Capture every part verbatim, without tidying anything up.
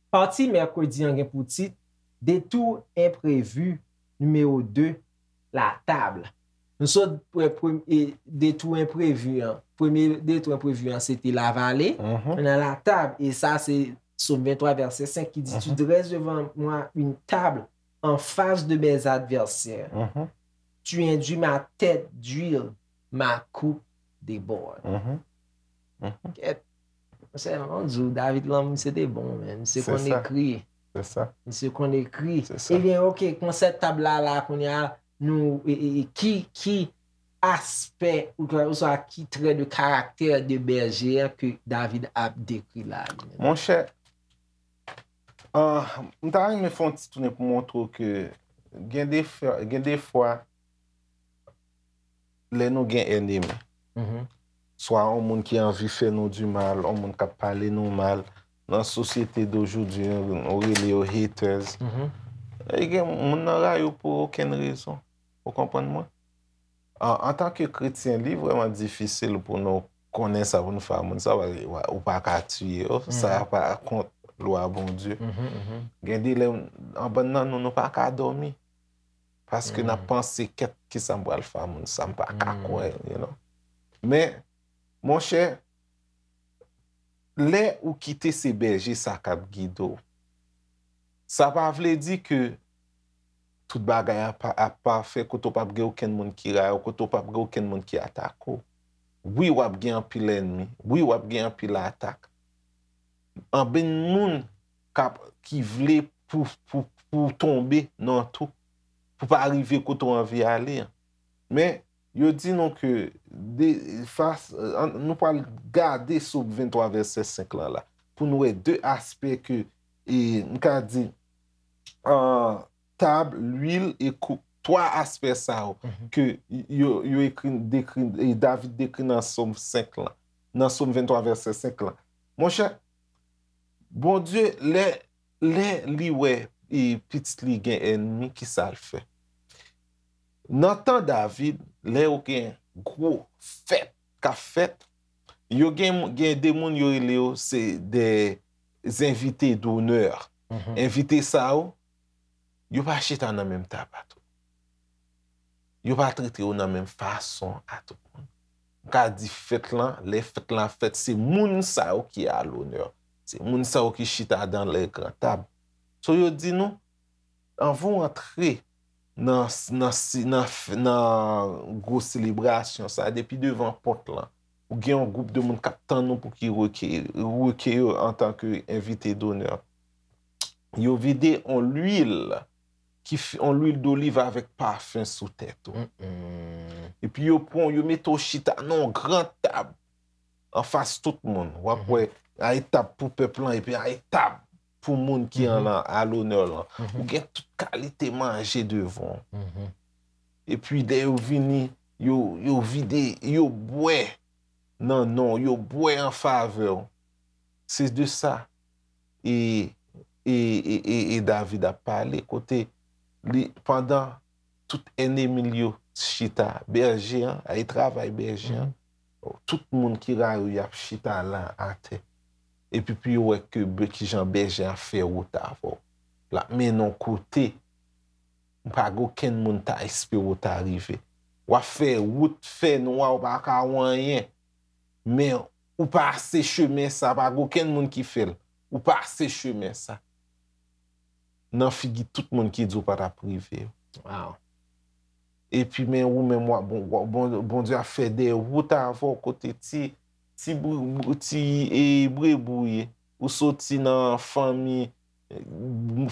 Pati mèkredi an gen pou tit Detour enprevi nimewo de, la table. Nou sot pre- pre- e, detour enprevi an. Premye detour enprevi an, se te lavale. Nan la table, e sa, se Sòm venntwa, vèsè senk ki di, Tu dresses devant moi une table en face de mes adversaires. Tu induis ma tête d'huile, ma coupe déborde. Kèt. Sèlman di w, David lan, misye te bon, men. Misye konn ekri. Se sa. Misye konn ekri. Se sa. Ebyen, ok, konsèp tab la, la, kounye a, nou, e, e, e, ki, ki aspè, ou, oswa ki trè de karaktè de bèje a ke David ap dekri la, li menm? Monchè, ah, m ta renmen fè yon ti tounen pou montre w ke gen de fwa, gen de fwa, lè nou gen ènmi, swa yon moun ki anvi fè nou di mal, yon moun k ap pale nou mal, nan sosyete dojodi, nou rele yo haters. E gen moun nan rayi w pou okenn rezon. Ou konprann mwen? An, antanke kretyen, li vrèman difisil pou nou konnen sa pou nou fè a moun sa, paske ou pa ka tiye yo, sa pa kont lwa Bondye. Gen de lè, anbann nan nou, nou pa ka dòmi. Paske n ap panse, kèt, kisa m pral fè a moun sa, m pa ka kwè, you know. Men, monchè, lè ou kite se bèje sa k ap gide w, sa pa vle di ke tout bagay ap, ap pafè, kote w p ap gen okenn moun ki rayi w, kote w p ap gen okenn moun ki atake w. Wi, w ap gen anpil ènmi. Wi, w ap gen anpil atak. Anpil moun k ap, ki vle pou, pou, pou w tonbe nan twou, pou w pa rive kote w anvi ale an. Men, yo di nou ke de, fas, an, nou pral gade Sòm venntwa vèsè senk lan la, pou n wè de aspè ke, e, m ka di, an, tab, lwil e koup. Twa aspè sa yo ke yo, yo ekri, dekri, e David dekri nan Sòm senk lan, nan Sòm venntwa vèsè senk lan. Monchè, Bondye, lè, lè li wè, e, pitit li gen ènmi, kisa l fè? Nan tan David, lè yo gen gwo fèt k ap fèt, yo gen, gen de moun yo rele yo se de envite donè. Envite sa yo, yo pa chita nan menm tab a tout. Yo pa trete yo nan menm fason a tout moun. M ka di fèt lan, lè fèt lan ap fèt, se moun sa yo ki a lonè. Se moun sa yo ki chita dans les grandes tables. So, yo di nou, anvan w antre nan, nan, nan, nan gwo selebrasyon sa, depi devan pòt lan, ou gen yon gwoup de moun k ap tann ou pou ki reke, reke yo antanke envite donè. Yo vide yon lwil ki f-, yon lwil doliv avèk pafen sou tèt ou. Epi yo pran, yo mete w chita nan yon gran tab anfas tout moun. W ap wè, ay tab pou pèp lan, epi ay tab pou moun ki an lan, a lonè lan. Ou gen tout kalite manje devan w. Epi lè yo vini, yo, yo vide, yo bwè nan non w, yo bwè an favè w. Se de sa e, e, e, e, e David ap pale, kote li, pandan tout ènmi l yo chita, bèje an, ay travay bèje an, tout moun ki rayi w, y ap chita la atè. Epi pou yo wè ke bè-, kijan bèje an fè wout avè w. L ap mennen w kote, pa gen okenn moun ta espere w ta rive. W ap fè wout fè nwa, w pa ka wè anyen. Men ou pase chemen sa, pa gen okenn moun ki fè l. Ou pase chemen sa. Nan figi tout moun ki di w pa t ap rive yo. Epi men ou menm, w ap, bon, w ap, bon, Bondye ap fè de wout avè w kote ti, ti, bri-, bri-, ti, e, brebou ye. Ou soti nan fanmi,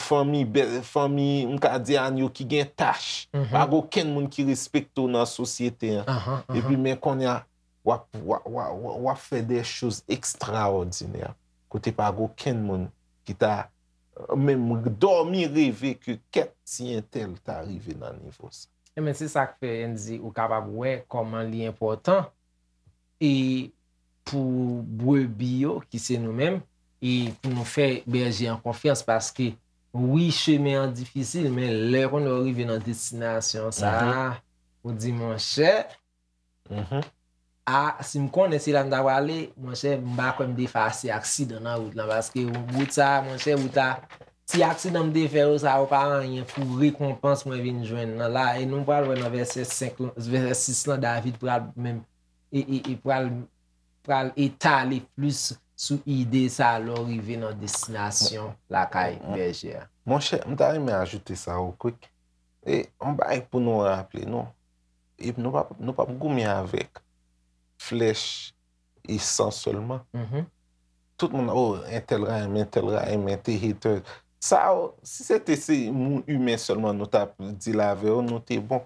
fanmi, bè-, fanmi, m ka di a yo ki gen tach. Pa gen okenn moun ki respekte w nan sosyete an. Epi men kounye a, w ap, w ap, w ap, w ap, w ap fè de choz ekstraòdinè. Kote pa gen okenn moun ki ta, menm dòmi reve ke kèt ti entèl ta rive nan nivo sa. Ebyen, se sa k fè, Andy, ou kapab wè kòman li enpòtan e pou brebi yo, ki se nou menm, e pou nou fè bèje an konfyans, paske Wi, chemen an difisil, men lè kounye a w rive nan destinasyon sa a, ou di, monchè, a, si m konnen se la m ta prale, monchè, m pa kwè m te fè ase aksidan nan wout lan, paske wout sa a, monchè, wout la, ti aksidan m te fè yo, sa yo pa anyen pou rekonpans mwen vin jwenn nan la. E nou pral wè nan vèsè senk lan, vèsè sis lan, David pral menm, e, e, e pral, pral etale plis sou ide sa a lè w rive nan destinasyon lakay bèje a. Monchè, m ta renmen ajoute sa ou kwik. E yon bagay pou nou raple nou. E nou p ap, nou p ap goumen avèk flèch e san sèlman. Tout moun, oh, entèl rayi m, entèl rayi m, entèl hater. Sa yo, si se te se moun imen sèlman nou t ap deal avè yo, nou te bon.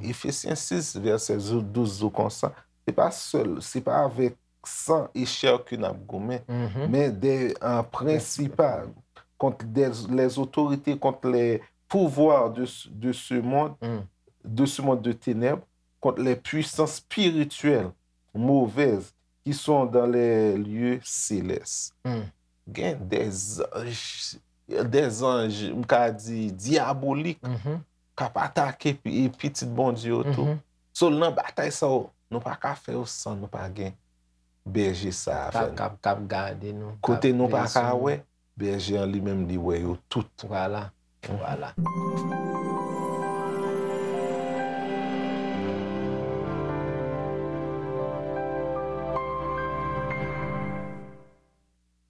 Efesyen sis, vèsè douz di konsa, se pa sèl, se pa avèk san e chè ke n ap goumen, men de, an prensipal, contre des, les autorités, contre les pouvoirs de, de ce monde, de ce monde de ténèbres, contre les puissances spirituelles mauvaises qui sont dans les lieux célestes. Gen des anges, des anges, m ka di, diabolik, k ap atake pi- pitit Bondye yo tou. So, nan batay sa yo, nou pa ka fè yo san nou pa gen bèje sa a avè K ap, nou. k ap, k ap gade nou. Kote nou pa ka wè, bèje an li menm li wè yo tout. Vwala, vwala.